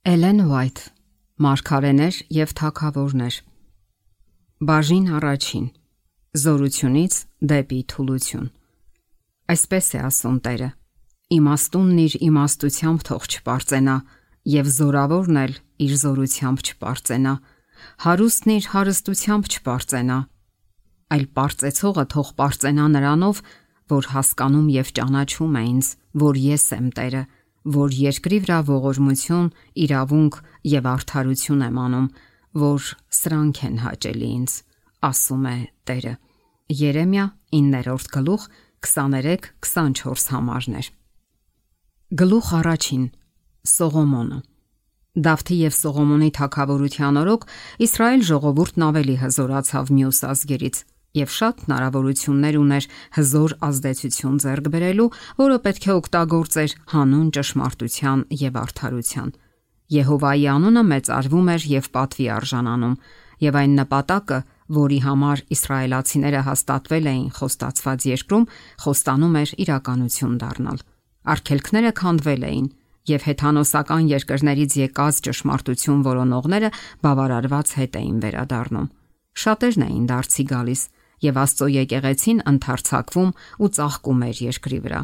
Էլեն Ուայթ, Մարգարեներ եւ թագավորներ։ Բաժին առաջին. Զորությունից դեպի թուլություն։ Այսպես է ասում Տերը. իմաստունն իր իմաստությամբ թող չպարծենա, եւ զորավորն էլ իր զորությամբ չպարծենա, հարուստն իր հարստությամբ չպարծենա, այլ պարծեցողը թող պարծենա նրանով, որ հասկանում եւ ճանաչում է ինձ, որ ես եմ Տերը, որ երկրի վրա ողորմություն, իրավունք եւ արդարություն եմ անում, որ սրանք են հաճելի ինձ, ասում է Տերը։ Երեմիա 9-րդ գլուխ 23-24 համարներ։ Գլուխ առաջին. Սողոմոնը։ Դավթի եւ Սողոմոնի թագավորության օրոք Իսրայել ժողովուրդն ավելի հզորացավ մյուս ազգերից եւ շատ հնարավորություններ ուներ հզոր ազդեցություն ձեռք բերելու, որը պետք է օգտագործեր հանուն ճշմարտության եւ արդարության։ Եհովայի անունը մեծարվում էր եւ պատվի արժանանում, եւ այն նպատակը, որի համար իսրայելացիները հաստատվել էին խոստացված երկրում, խոստանում էր իրականություն դառնալ։ Արգելքները քանդվել էին, եւ հեթանոսական երկրներից եկած ճշմարտություն որոնողները բավարարված հետ էին վերադառնում։ Շատերն էին դարձի գալիս, եւ Աստծո եկեղեցին ընդարձակվում ու ծաղկում էր երկրի վրա։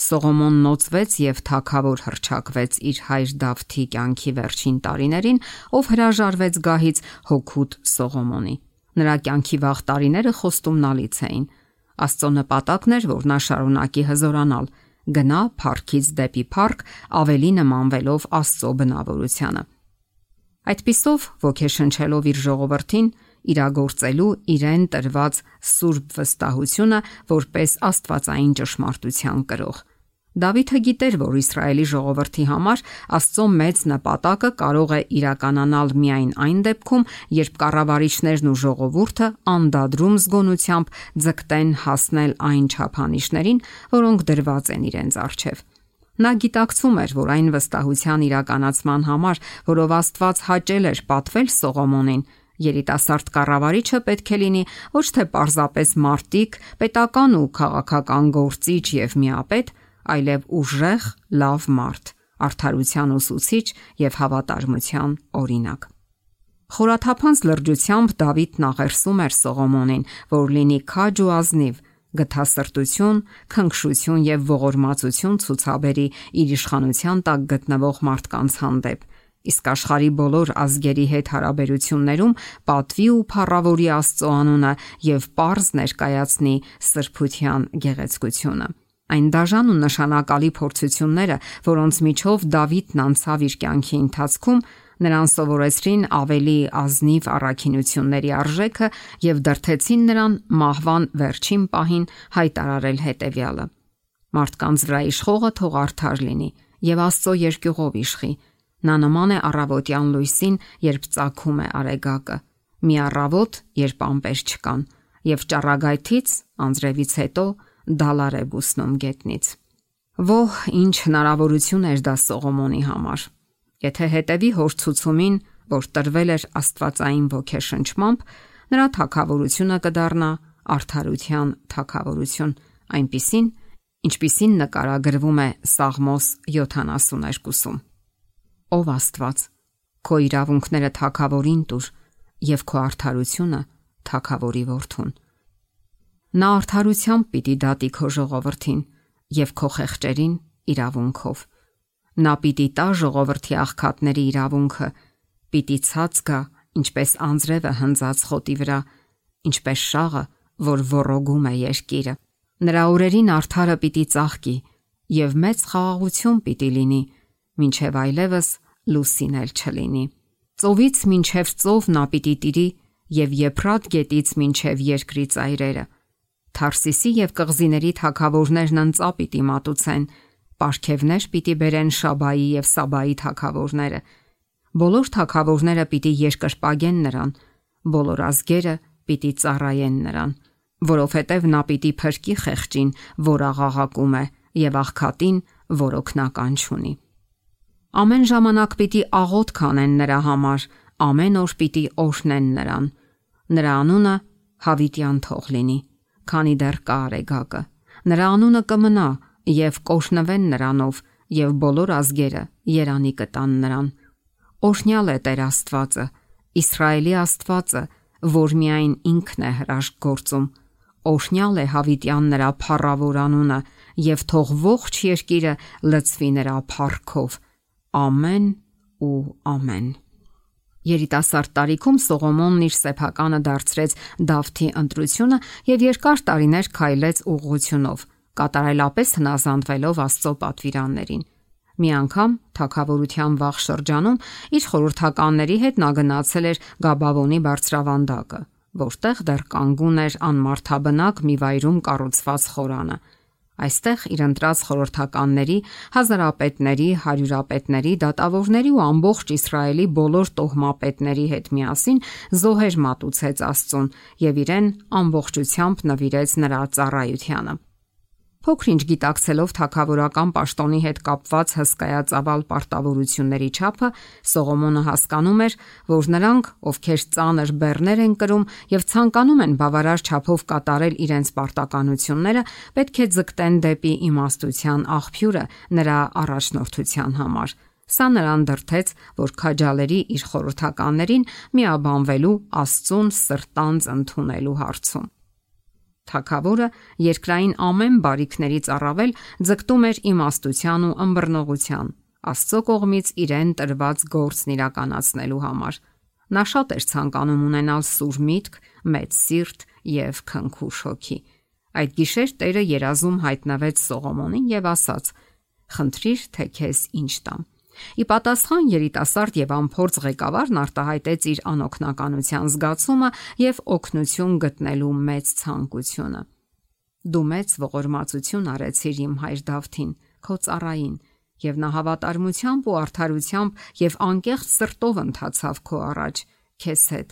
Սողոմոնն նոծվեց եւ թագավոր հռչակվեց իր հայր Դավթի կյանքի վերջին տարիներին, ով հրաժարվեց գահից հոգուտ Սողոմոնի։ Նրա կյանքի վաղ տարիները խոստումնալից էին։ Աստծո նպատակն էր, որ նա շարունակի հզորանալ, գնա փառքից դեպի փառք, ավելի նմանվելով Աստծո բնավորությանը։ Այդպիսով ոգեշնչելով իր ժողովրդին, իրագործելու իրեն տրված սուրբ վստահությունը որպես աստվածային ճշմարտության կրող։ Դավիթը գիտեր, որ Իսրայելի ժողովրդի համար Աստծո մեծ նպատակը կարող է իրականանալ միայն այն դեպքում, երբ կառավարիչներն ու ժողովուրդը անդադրում զգոնությամբ ձգտեն հասնել այն չափանիշներին, որոնք դրված են իրենց առջև։ Նա գիտակցում էր, որ այն վստահության իրականացման համար, որով Աստված հաճել էր պատվել Սողոմոնին, երիտասարդ կառավարիչը պետք է լինի ոչ թե պարզապես մարտիկ, պետական ու քաղաքական գործիչ եւ միապետ, այլև ուժեղ, լավ մարդ, արդարության ուսուցիչ եւ հավատարմության օրինակ։ Խորաթափանց լրջությամբ Դավիթն աղերսում էր Սողոմոնին, որ լինի քաջ ու ազնիվ, գթասրտություն, քնքշություն եւ ողորմածություն ցուցաբերի իր իշխանության տակ գտնվող մարդկանց հանդեպ, իսկ աշխարհի բոլոր ազգերի հետ հարաբերություններում պատվի ու փառավորի Աստծո անունը եւ պարզ ներկայացնի սրբության գեղեցկությունը։ Այն դաժան ու նշանակալի փորձությունները, որոնց միջով Դավիթն անցավ իր կյանքի ընթացքում, նրան սովորեցրին ավելի ազնիվ առաքինությունների արժեքը եւ դրթեցին նրան մահվան վերջին պահին հայտարարել հետեւյալը. մարդկանց վրա իշխողը թող արդար լինի եւ Աստծո երկյուղով իշխի։ Նա նման է առավոտյան լույսին, երբ ծագում է արեգակը, մի առավոտ, երբ ամպեր չկան, եւ ճառագայթից անձրևից հետո դալար է բուսնում գետնից։ Ոհ, ինչ հնարավորություն էր դա Սողոմոնի համար։ Եթե հետևի հոր ցուցումին, որ տրվել էր աստվածային ոգեշնչմամբ, նրա թագավորությունը կդառնա արդարության թագավորություն, այնպիսին, ինչպիսին նկարագրվում է Սաղմոս 72-ում։ Ով Աստված, քո իրավունքները թագավորին տուր եւ քո արդարությունը թագավորի որդուն։ Նա արդարությամբ պիտի դատի քո ժողովրդին եւ քո խեղճերին իրավունքով։ Նա պիտի տա ժողովրդի աղքատների իրավունքը, պիտի ցած գա, ինչպես անձրևը հնձած խոտի վրա, ինչպես շաղը, որ ոռոգում է երկիրը։ Նրա օրերին արդարը պիտի ծաղկի եւ մեծ խաղաղություն պիտի լինի, մինչև այլևս լուսին էլ չլինի։ Ծովից մինչև ծով նա պիտի տիրի եւ Եփրատ գետից մինչև երկրի ծայրերը։ Թարսիսի եւ կղզիների թագավորներն ընծա պիտի մատուցեն, պարգևներ պիտի բերեն Շաբայի եւ Սաբայի թագավորները։ Բոլոր թագավորները պիտի երկրպագեն նրան, բոլոր ազգերը պիտի ծառայեն նրան, որովհետև նա պիտի փրկի խեղճին, որ աղաղակում է, եւ աղքատին, որ օգնական չունի։ Ամեն ժամանակ պիտի աղոթ կանեն նրա համար, ամեն օր պիտի օրհնեն նրան։ Նրա անունը հավիտյան թող լինի, քանի դեռ կա արեգակը։ Նրա անունը կմնա եւ կօրհնվեն նրանով եւ բոլոր ազգերը երանի կտան նրան։ Օրհնյալ է Տեր Աստվածը, Իսրայելի Աստվածը, որ միայն ինքն է հրաշք գործում։ Օրհնյալ է հավիտյան նրա փառավոր անունը, եւ թող ողջ երկիրը լցվի նրա փառքով։ Ամեն ու ամեն։ Երիտասարդ տարիքում Սողոմոնն իր սեփականը դարձրեց Դավթի ընտրությունը եւ երկար տարիներ քայլեց ուղղությունով, կատարելապես հնազանդվելով Աստծո պատվիրաններին։ Մի անգամ թագավորության վաղ շրջանում իր խորհրդականների հետ նա գնացել էր Գաբավոնի բարձրավանդակը, որտեղ դեռ կանգուն էր անմարդաբնակ մի վայրում կառուցված խորանը։ Այստեղ իր ընտրած խորհրդականների, հազարապետների, հարյուրապետների, դատավորների ու ամբողջ Իսրայելի բոլոր տոհմապետների հետ միասին զոհեր մատուցեց Աստծուն եւ իրեն ամբողջությամբ նվիրեց նրա ծառայությանը։ Փոքրինչ գիտակցելով թագավորական պաշտոնի հետ կապված հսկայածավալ պարտավորությունների չափը, Սողոմոնը հասկանում էր, որ նրանք, ովքեր ծանր բեռներ են կրում եւ ցանկանում են բավարար չափով կատարել իրենց պարտականությունները, պետք է ձգտեն դեպի իմաստության աղբյուրը նրա առաջնորդության համար։ Սա նրան դրդեց, որ քաջալերի իր խորհրդականներին միաբանվելու Աստծուն սրտանց ընդունելու հարցում։ Թագավորը երկրային ամեն բարիքներից առավել ձգտում էր իմաստության ու ըմբռնողության, Աստծո կողմից իրեն տրված գործն իրականացնելու համար։ Նա շատ էր ցանկանում ունենալ սուր միտք, մեծ սիրտ եւ քնքուշ հոգի։ Այդ գիշեր Տերը երազում հայտնվեց Սողոմոնին եւ ասաց. «Խնդրիր, թե քեզ ինչ տամ»։ Ի պատասխան երիտասարդ եւ անփորձ ղեկավարն արտահայտեց իր անօգնականության զգացումը եւ օգնություն գտնելու մեծ ցանկությունը։ Դու մեծ ողորմածություն արեցիր իմ հայր Դավթին, քո ծառային, եւ նա հավատարմությամբ ու արդարությամբ եւ անկեղծ սրտով ընթացավ քո առաջ, քեզ հետ,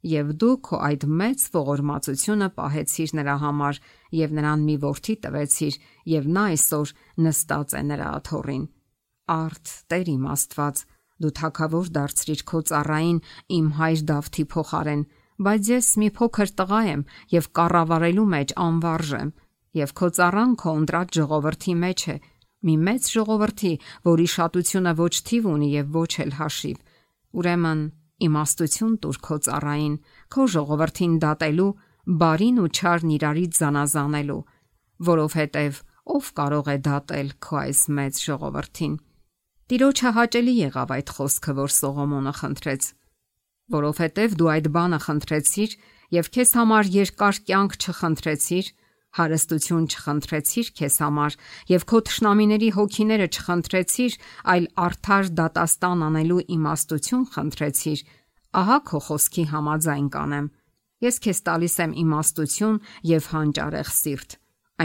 եւ դու քո այդ մեծ ողորմածությունը պահեցիր նրա համար եւ նրան մի որդի տվեցիր, եւ նա այսօր նստած է նրա աթոռին։ Արդ Տեր իմ Աստված, դու թագավոր դարձրիր քո ծառային իմ հայր Դավթի փոխարեն, բայց ես մի փոքր տղա եմ եւ կառավարելու մեջ անվարժ եմ, եւ քո ծառան քո ընտրած ժողովրդի մեջ է, մի մեծ ժողովրդի, որի շատությունը ոչ թիվ ունի եւ ոչ էլ հաշիվ։ Ուրեմն իմաստություն տուր քո ծառային, քո ժողովրդին դատելու, բարին ու չարն իրարից զանազանելու, որովհետեւ ով կարող է դատել քո այս մեծ ժողովրդին։ Տիրոջը հաճելի եղավ այդ խոսքը, որ Սողոմոնը խնդրեց, որովհետև դու այդ բանը խնդրեցիր եւ քեզ համար երկար կյանք չխնդրեցիր, հարստություն չխնդրեցիր քեզ համար եւ քո թշնամիների հոգիները չխնդրեցիր, այլ արդար դատաստան անելու իմաստություն խնդրեցիր, ահա քո խոսքի համաձայն կանեմ։ Ես քեզ տալիս եմ իմաստություն եւ հանճարեղ սիրտ,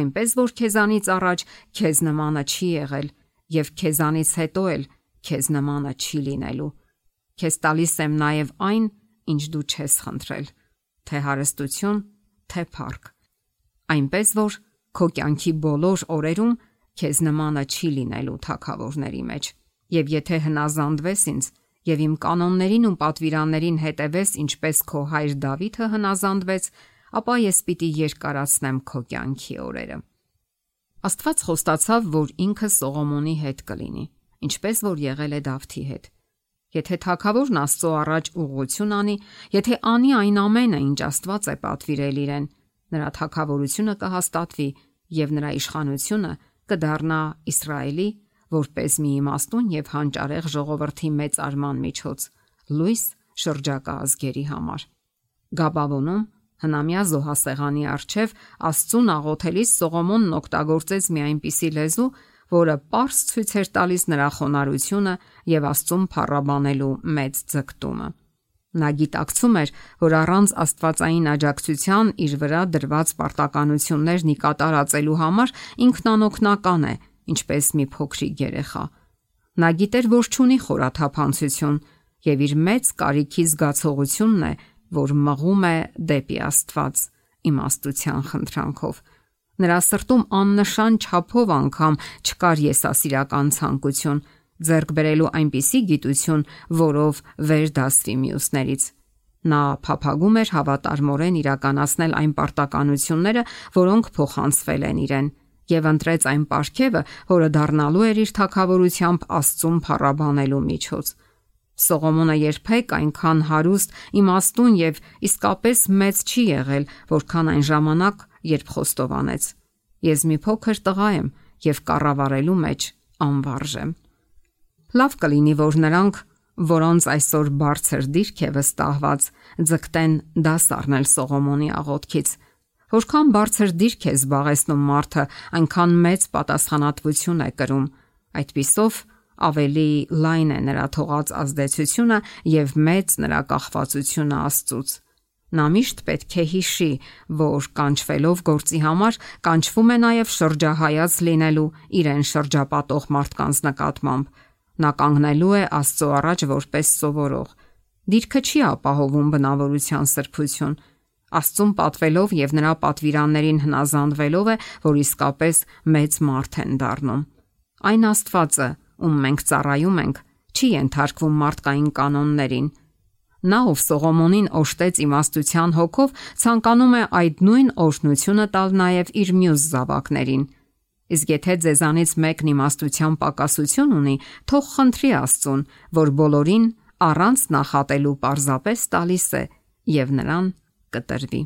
այնպես որ քեզանից առաջ քեզ նմանը չի եղել եւ քեզանից հետո էլ քեզ նմանը չի լինելու։ Քեզ տալիս եմ նաև այն, ինչ դու չես խնդրել, թե հարստություն, թե փառք, այնպես որ քո կյանքի բոլոր օրերում քեզ նմանը չի լինելու թագավորների մեջ։ Եվ եթե հնազանդվես ինձ եւ իմ կանոններին ու պատվիրաններին հետևես, ինչպես քո հայր Դավիթը հնազանդվեց, ապա ես պիտի երկարացնեմ քո կյանքի օրերը։ Աստված խոստացավ, որ ինքը Սողոմոնի հետ կլինի, ինչպես որ եղել է Դավթի հետ։ Եթե թագավորն Աստծո առաջ ուղղություն անի, եթե անի այն ամենը, ինչ Աստված է պատվիրել իրեն, նրա թագավորությունը կհաստատվի եւ նրա իշխանությունը կդառնա Իսրայելի որպես մի իմաստուն եւ հանճարեղ ժողովրդի մեծ արման միջոց, լույս շրջակա ազգերի համար։ Գաբավոնում հնամյա զոհասեղանի առջև Աստծուն աղոթելիս Սողոմոնն օգտագործեց մի այնպիսի լեզու, որը պարզ ցույց էր տալիս նրա խոնարհությունը եւ Աստծուն փառաբանելու մեծ ձգտումը։ Նա գիտակցում էր, որ առանց աստվածային աջակցության իր վրա դրված պարտականություններն ի կատարածելու համար ինքն անօգնական է, ինչպես մի փոքրիկ երեխա։ Նա գիտեր, որ չունի խորաթափանցություն եւ իր մեծ կարիքի զգացողությունն է, որ մղում է դեպի Աստված իմաստության խնդրանքով։ Նրա սրտում աննշան չափով անգամ չկար եսասիրական ցանկություն, ձեռք բերելու այնպիսի գիտություն, որով վեր դասվի մյուսներից։ Նա փափագում էր հավատարմորեն իրականացնել այն պարտականությունները, որոնք փոխանցվել են իրեն, եւ ընտրեց այն պարգևը, որը դառնալու էր իր թագավորությամբ Աստծուն փառաբանելու միջոց։ Սողոմոնը երբեք այնքան հարուստ, իմաստուն եւ իսկապես մեծ չի եղել, որքան այն ժամանակ, երբ խոստովանեց. Ես մի փոքր տղա եմ եւ կառավարելու մեջ անվարժ եմ։ Լավ կլինի, որ նրանք, որոնց այսօր բարձր դիրք է վստահված, ձգտեն դաս առնել Սողոմոնի աղոթքից։ Որքան բարձր դիրք է զբաղեցնում մարդը, այնքան մեծ պատասխանատվություն է կրում։ Այդպիսով ավելի լայն է նրա թողած ազդեցությունը եւ մեծ նրա կախվածությունը Աստծուց։ Նա միշտ պետք է հիշի, որ կանչվելով գործի համար կանչվում է նաեւ շրջահայաց լինելու իրեն շրջապատող մարդկանց նկատմամբ։ Նա կանգնելու է Աստծո առաջ որպես սովորող։ Դիրքը չի ապահովում բնավորության սրբություն։ Աստծուն պատվելով եւ նրա պատվիրաններին հնազանդվելով է, որ իսկապես մեծ մարդ են դառնում։ Այն Աստվածը, ում մենք ծառայում ենք, չի ենթարկվում մարդկային կանոններին։ Նա, ով Սողոմոնին օժտեց իմաստության հոգով, ցանկանում է այդ նույն օրհնությունը տալ նաև իր մյուս զավակներին։ Իսկ եթե ձեզանից մեկն իմաստության պակասություն ունի, թող խնդրի Աստծուն, որ բոլորին առանց նախատելու պարզապես տալիս է, եւ նրան կտրվի։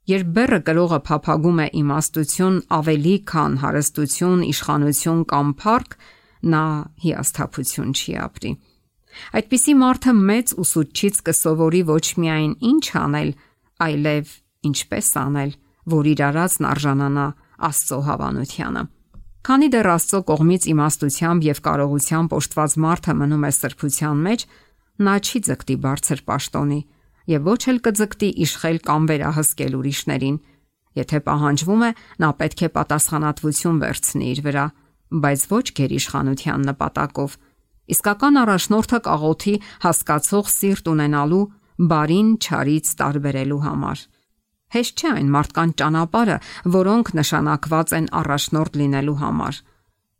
Երբ բեռը կրողը փափագում է իմաստություն ավելի քան հարստություն, իշխանություն կամ փառք, նա հիասթափություն չի ապրի։ Այդպիսի մարդը մեծ ուսուցչից կսովորի ոչ միայն ինչ անել, այլև ինչպես անել, որ իր արածն արժանանա Աստծո հավանությանը։ Քանի դեռ Աստծո կողմից իմաստությամբ եւ կարողությամբ օժտված մարդը մնում է սրբության մեջ, նա չի ձգտի բարձր պաշտոնի եւ ոչ էլ կձգտի իշխել կամ վերահսկել ուրիշներին։ Եթե պահանջվում է, նա պետք է պատասխանատվություն վերցնի իր վրա, բայց ոչ գերիշխանության նպատակով։ Իսկական առաջնորդը կաղոթի հասկացող սիրտ ունենալու, բարին չարից տարբերելու համար։ Հեշտ չէ այն մարդկանց ճանապարհը, որոնք նշանակված են առաջնորդ լինելու համար։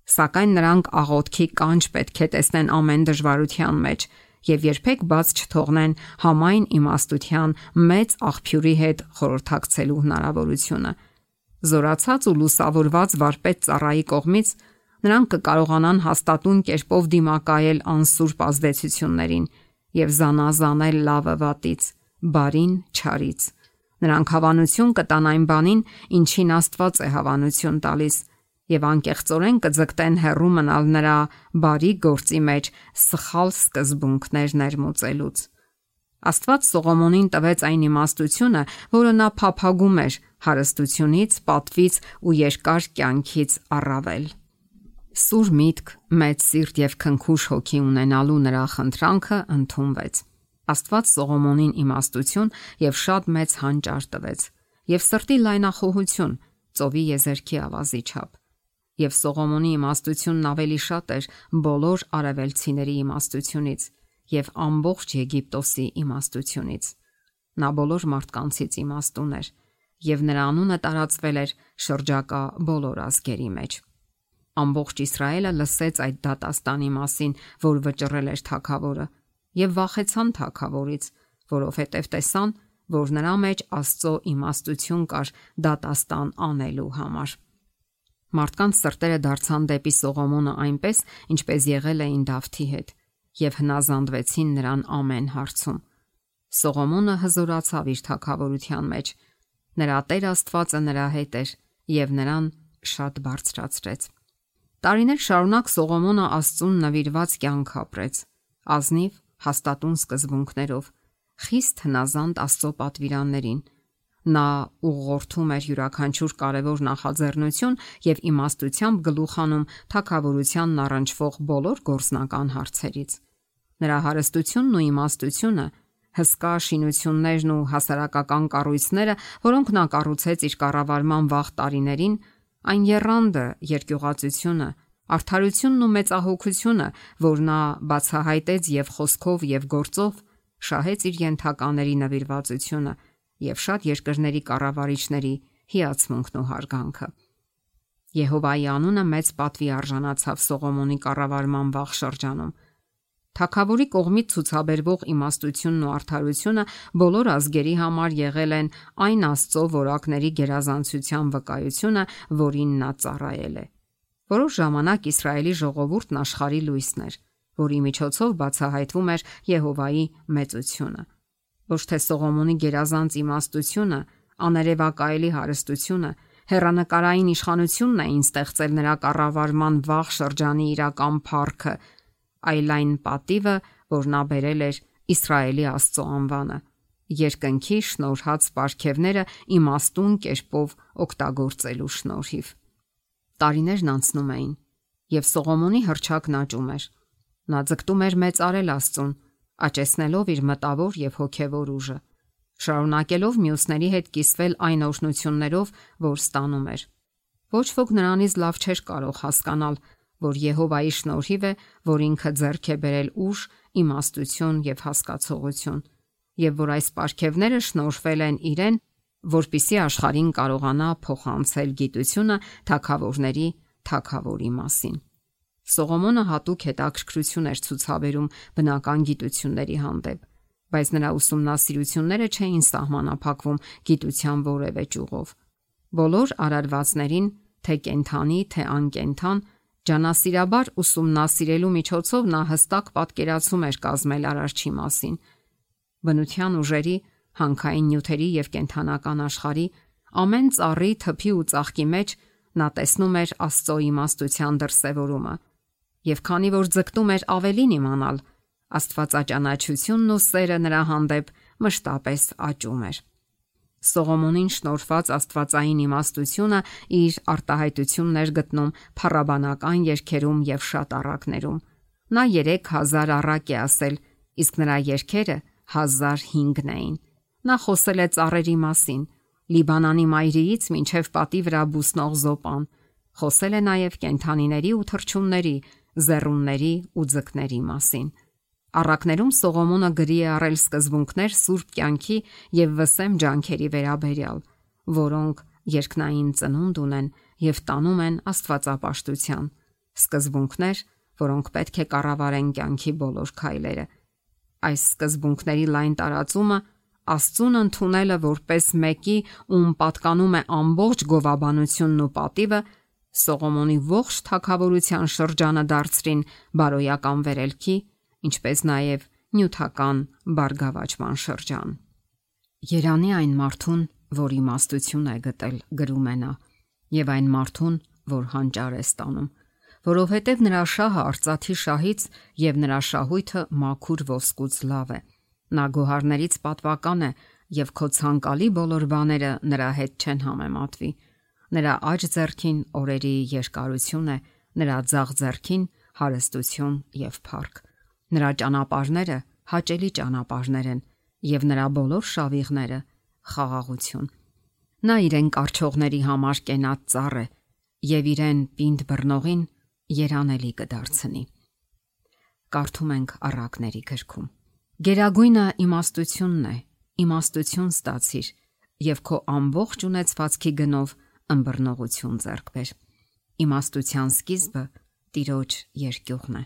Սակայն նրանք աղոթքի կանչ պետք է տեսնեն ամեն դժվարության մեջ եւ երբեք բաց չթողնեն համայն իմաստության մեծ աղբյուրի հետ խորհրդակցելու հնարավորությունը։ Զորացած ու լուսավորված վարպետ ծառայի կողմից նրանք կկարողանան հաստատուն կերպով դիմակայել անսուրբ ազդեցություններին եւ զանազանել լավը վատից, բարին չարից։ Նրանք հավանություն կտան այն բանին, ինչին Աստված է հավանություն տալիս, եւ անկեղծորեն կձգտեն հեռու մնալ նրա բարի գործի մեջ սխալ սկզբունքներ ներմուծելուց։ Աստված Սողոմոնին տվեց այն իմաստությունը, որը նա փափագում էր հարստությունից, պատվից ու երկար կյանքից առավել։ Սուր միտք, մեծ սիրտ եւ քնքուշ հոգի ունենալու նրա խնդրանքը ընդունվեց։ Աստված Սողոմոնին իմաստություն եւ շատ մեծ հանճար տվեց, եւ սրտի լայնախոհություն, ծովի եզերքի ավազի չափ։ Եվ Սողոմոնի իմաստությունն ավելի շատ էր բոլոր արևելցիների իմաստությունից եւ ամբողջ Եգիպտոսի իմաստությունից։ Նա բոլոր մարդկանցից իմաստուն էր, եւ նրա անունը տարածվել էր շրջակա բոլոր ազգերի մեջ։ Ամբողջ Իսրայելը լսեց այդ դատաստանի մասին, որ վճռել էր թագավորը, եւ վախեցան թագավորից, որովհետև տեսան, որ նրա մեջ Աստծո իմաստություն կար դատաստան անելու համար։ Մարդկանց սրտերը դարձան դեպի Սողոմոնը այնպես, ինչպես եղել էին Դավթի հետ, եւ հնազանդվեցին նրան ամեն հարցում։ Սողոմոնը հզորացավ իր թագավորության մեջ։ Նրա Տեր Աստվածը նրա հետ էր եւ նրան շատ բարձրացրեց։ Տարիներ շարունակ Սողոմոնը Աստծուն նվիրված կյանք ապրեց, ազնիվ, հաստատուն սկզբունքներով, խիստ հնազանդ Աստծո պատվիրաններին։ Նա ուղղորդում էր յուրաքանչյուր կարևոր նախաձեռնություն եւ իմաստությամբ գլուխանում թագավորությանն առնչվող բոլոր գործնական հարցերից։ Նրա հարստությունն ու իմաստությունը, հսկա շինություններն ու հասարակական կառույցները, որոնք նա կառուցեց իր կառավարման վաղ տարիներին, այն եռանդը, երկյուղածությունը, արդարությունն ու մեծահոգությունը, որ նա բացահայտեց եւ խոսքով եւ գործով, շահեց իր ենթակաների նվիրվածությունը եւ շատ երկրների կառավարիչների հիացմունքն ու հարգանքը։ Եհովայի անունը մեծ պատվի արժանացավ Սողոմոնի կառավարման վաղ շրջանում։ Թագավորի կողմից ցուցաբերվող իմաստությունն ու արդարությունը բոլոր ազգերի համար եղել են այն Աստծո որակների գերազանցության վկայությունը, որին նա ծառայել է։ Որոշ ժամանակ Իսրայելի ժողովուրդն աշխարհի լույսն էր, որի միջոցով բացահայտվում էր Եհովայի մեծությունը։ Ոչ թե Սողոմոնի գերազանց իմաստությունը, աներևակայելի հարստությունը, հեռանկարային իշխանությունն էին ստեղծել նրա կառավարման վաղ շրջանի իրական փառքը, այլ այն պատիվը, որ նա բերել էր Իսրայելի Աստծո անվանը, երկնքի շնորհած պարգևները իմաստուն կերպով օգտագործելու շնորհիվ։ Տարիներն անցնում էին, եւ Սողոմոնի հռչակն աճում էր։ Նա ձգտում էր մեծարել Աստծուն, աճեցնելով իր մտավոր եւ հոգեվոր ուժը, շարունակելով մյուսների հետ կիսվել այն օրհնություններով, որ ստանում էր։ Ոչ ոք նրանից լավ չէր կարող հասկանալ, որ Եհովայի շնորհիվ է, որ ինքը ձեռք է բերել ուժ, իմաստություն եւ հասկացողություն, եւ որ այս պարգևները շնորհվել են իրեն, որպիսի աշխարհին կարողանա փոխանցել գիտությունը թագավորների թագավորի մասին։ Սողոմոնը հատուկ հետաքրքրություն էր ցուցաբերում բնական գիտությունների հանդեպ, բայց նրա ուսումնասիրությունները չէին սահմանափակվում գիտության որևէ ճյուղով։ Բոլոր արարվածներին, թե կենդանի, թե անկենդան, ջանասիրաբար ուսումնասիրելու միջոցով նա հստակ պատկերացում էր կազմել Արարչի մասին։ Բնության ուժերի, հանքային նյութերի եւ կենդանական աշխարհի ամեն ծառի, թփի ու ծաղկի մեջ նա տեսնում էր Աստծո իմաստության դրսևորումը, եւ քանի որ ձգտում էր ավելին իմանալ, աստվածաճանաչությունն ու սերը նրա հանդեպ մշտապես աճում էր։ Սողոմոնին շնորհված աստվածային իմաստությունը իր արտահայտությունն էր գտնում փառաբանական երգերում եւ շատ առակներում։ Նա 3000 առակ է ասել, իսկ նրա երգերը 1005-ն էին։ Նա խոսել է ծառերի մասին, Լիբանանի մայրիից մինչև պատի վրա բուսնող զոպան, խոսել է նաև կենդանիների ու թռչունների, զեռունների ու ձկների մասին։ Առակներում Սողոմոնը գրի է առել սկզբունքներ սուրբ կյանքի եւ վսեմ ջանքերի վերաբերյալ, որոնք երկնային ծնունդ ունեն եւ տանում են աստվածապաշտության, սկզբունքներ, որոնք պետք է կառավարեն կյանքի բոլոր քայլերը։ Այս սկզբունքների լայն տարածումը, Աստծուն ընդունելը որպես մեկի, ում պատկանում է ամբողջ գովաբանությունն ու պատիվը, Սողոմոնի ողջ թագավորության շրջանը դարձրին բարոյական վերելքի, ինչպես նաև նյութական բարգավաճման շրջան։ Երանի այն մարդուն, որ իմաստություն է գտել, գրում է նա, եւ այն մարդուն, որ հանճար է ստանում, որովհետև նրա շահը արծաթի շահից եւ նրա շահույթը մաքուր ոսկուց լավ է։ Նա գոհարներից պատվական է եւ քո ցանկալի բոլոր բաները նրա հետ չեն համեմատվի։ Նրա աջ ձեռքին օրերի երկարություն է, նրա ձախ ձեռքին հարստություն եւ փառք։ Նրա ճանապարհները հաճելի ճանապարհներ են եւ նրա բոլոր շավիղները խաղաղություն։ Նա իրեն կարճողների համար կենաց ծառ է եւ իրեն պինդ բռնողին երանելի կդարձնի։ Կարդում ենք առակների գրքում։ Գերագույնը իմաստությունն է, իմաստություն ստացիր եւ քո ամբողջ ունեցվածքի գնով ըմբռնողություն ձեռք բեր։ Իմաստության սկիզբը Տիրոջ երկյուղն է։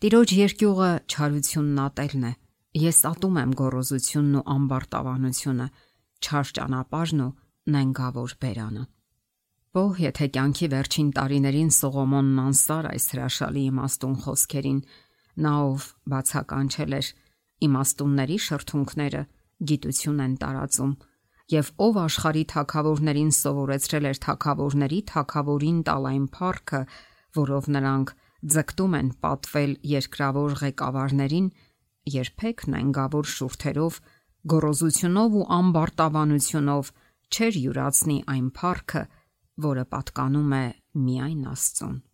Տիրոջ երկյուղը չարությունն ատելն է։ Ես ատում եմ գոռոզությունն ու ամբարտավանությունը, չար ճանապարհն ու նենգավոր բերանը։ Ո՞հ եթե կյանքի վերջին տարիներին Սողոմոնն անսար այս հրաշալի իմաստուն խոսքերին, նա ով բացականչել էր իմաստունների շրթունքները գիտություն են տարածում եւ ով աշխարհի թագավորներին սովորեցրել էր թագավորների թագավորին տալ այն փառքը, որով նրանք ձգտում են պատվել երկրավոր ղեկավարներին, երբեք նենգավոր շուրթերով, գոռոզությունով ու ամբարտավանությունով չեր յուրացնի այն փառքը, որը պատկանում է միայն Աստծուն։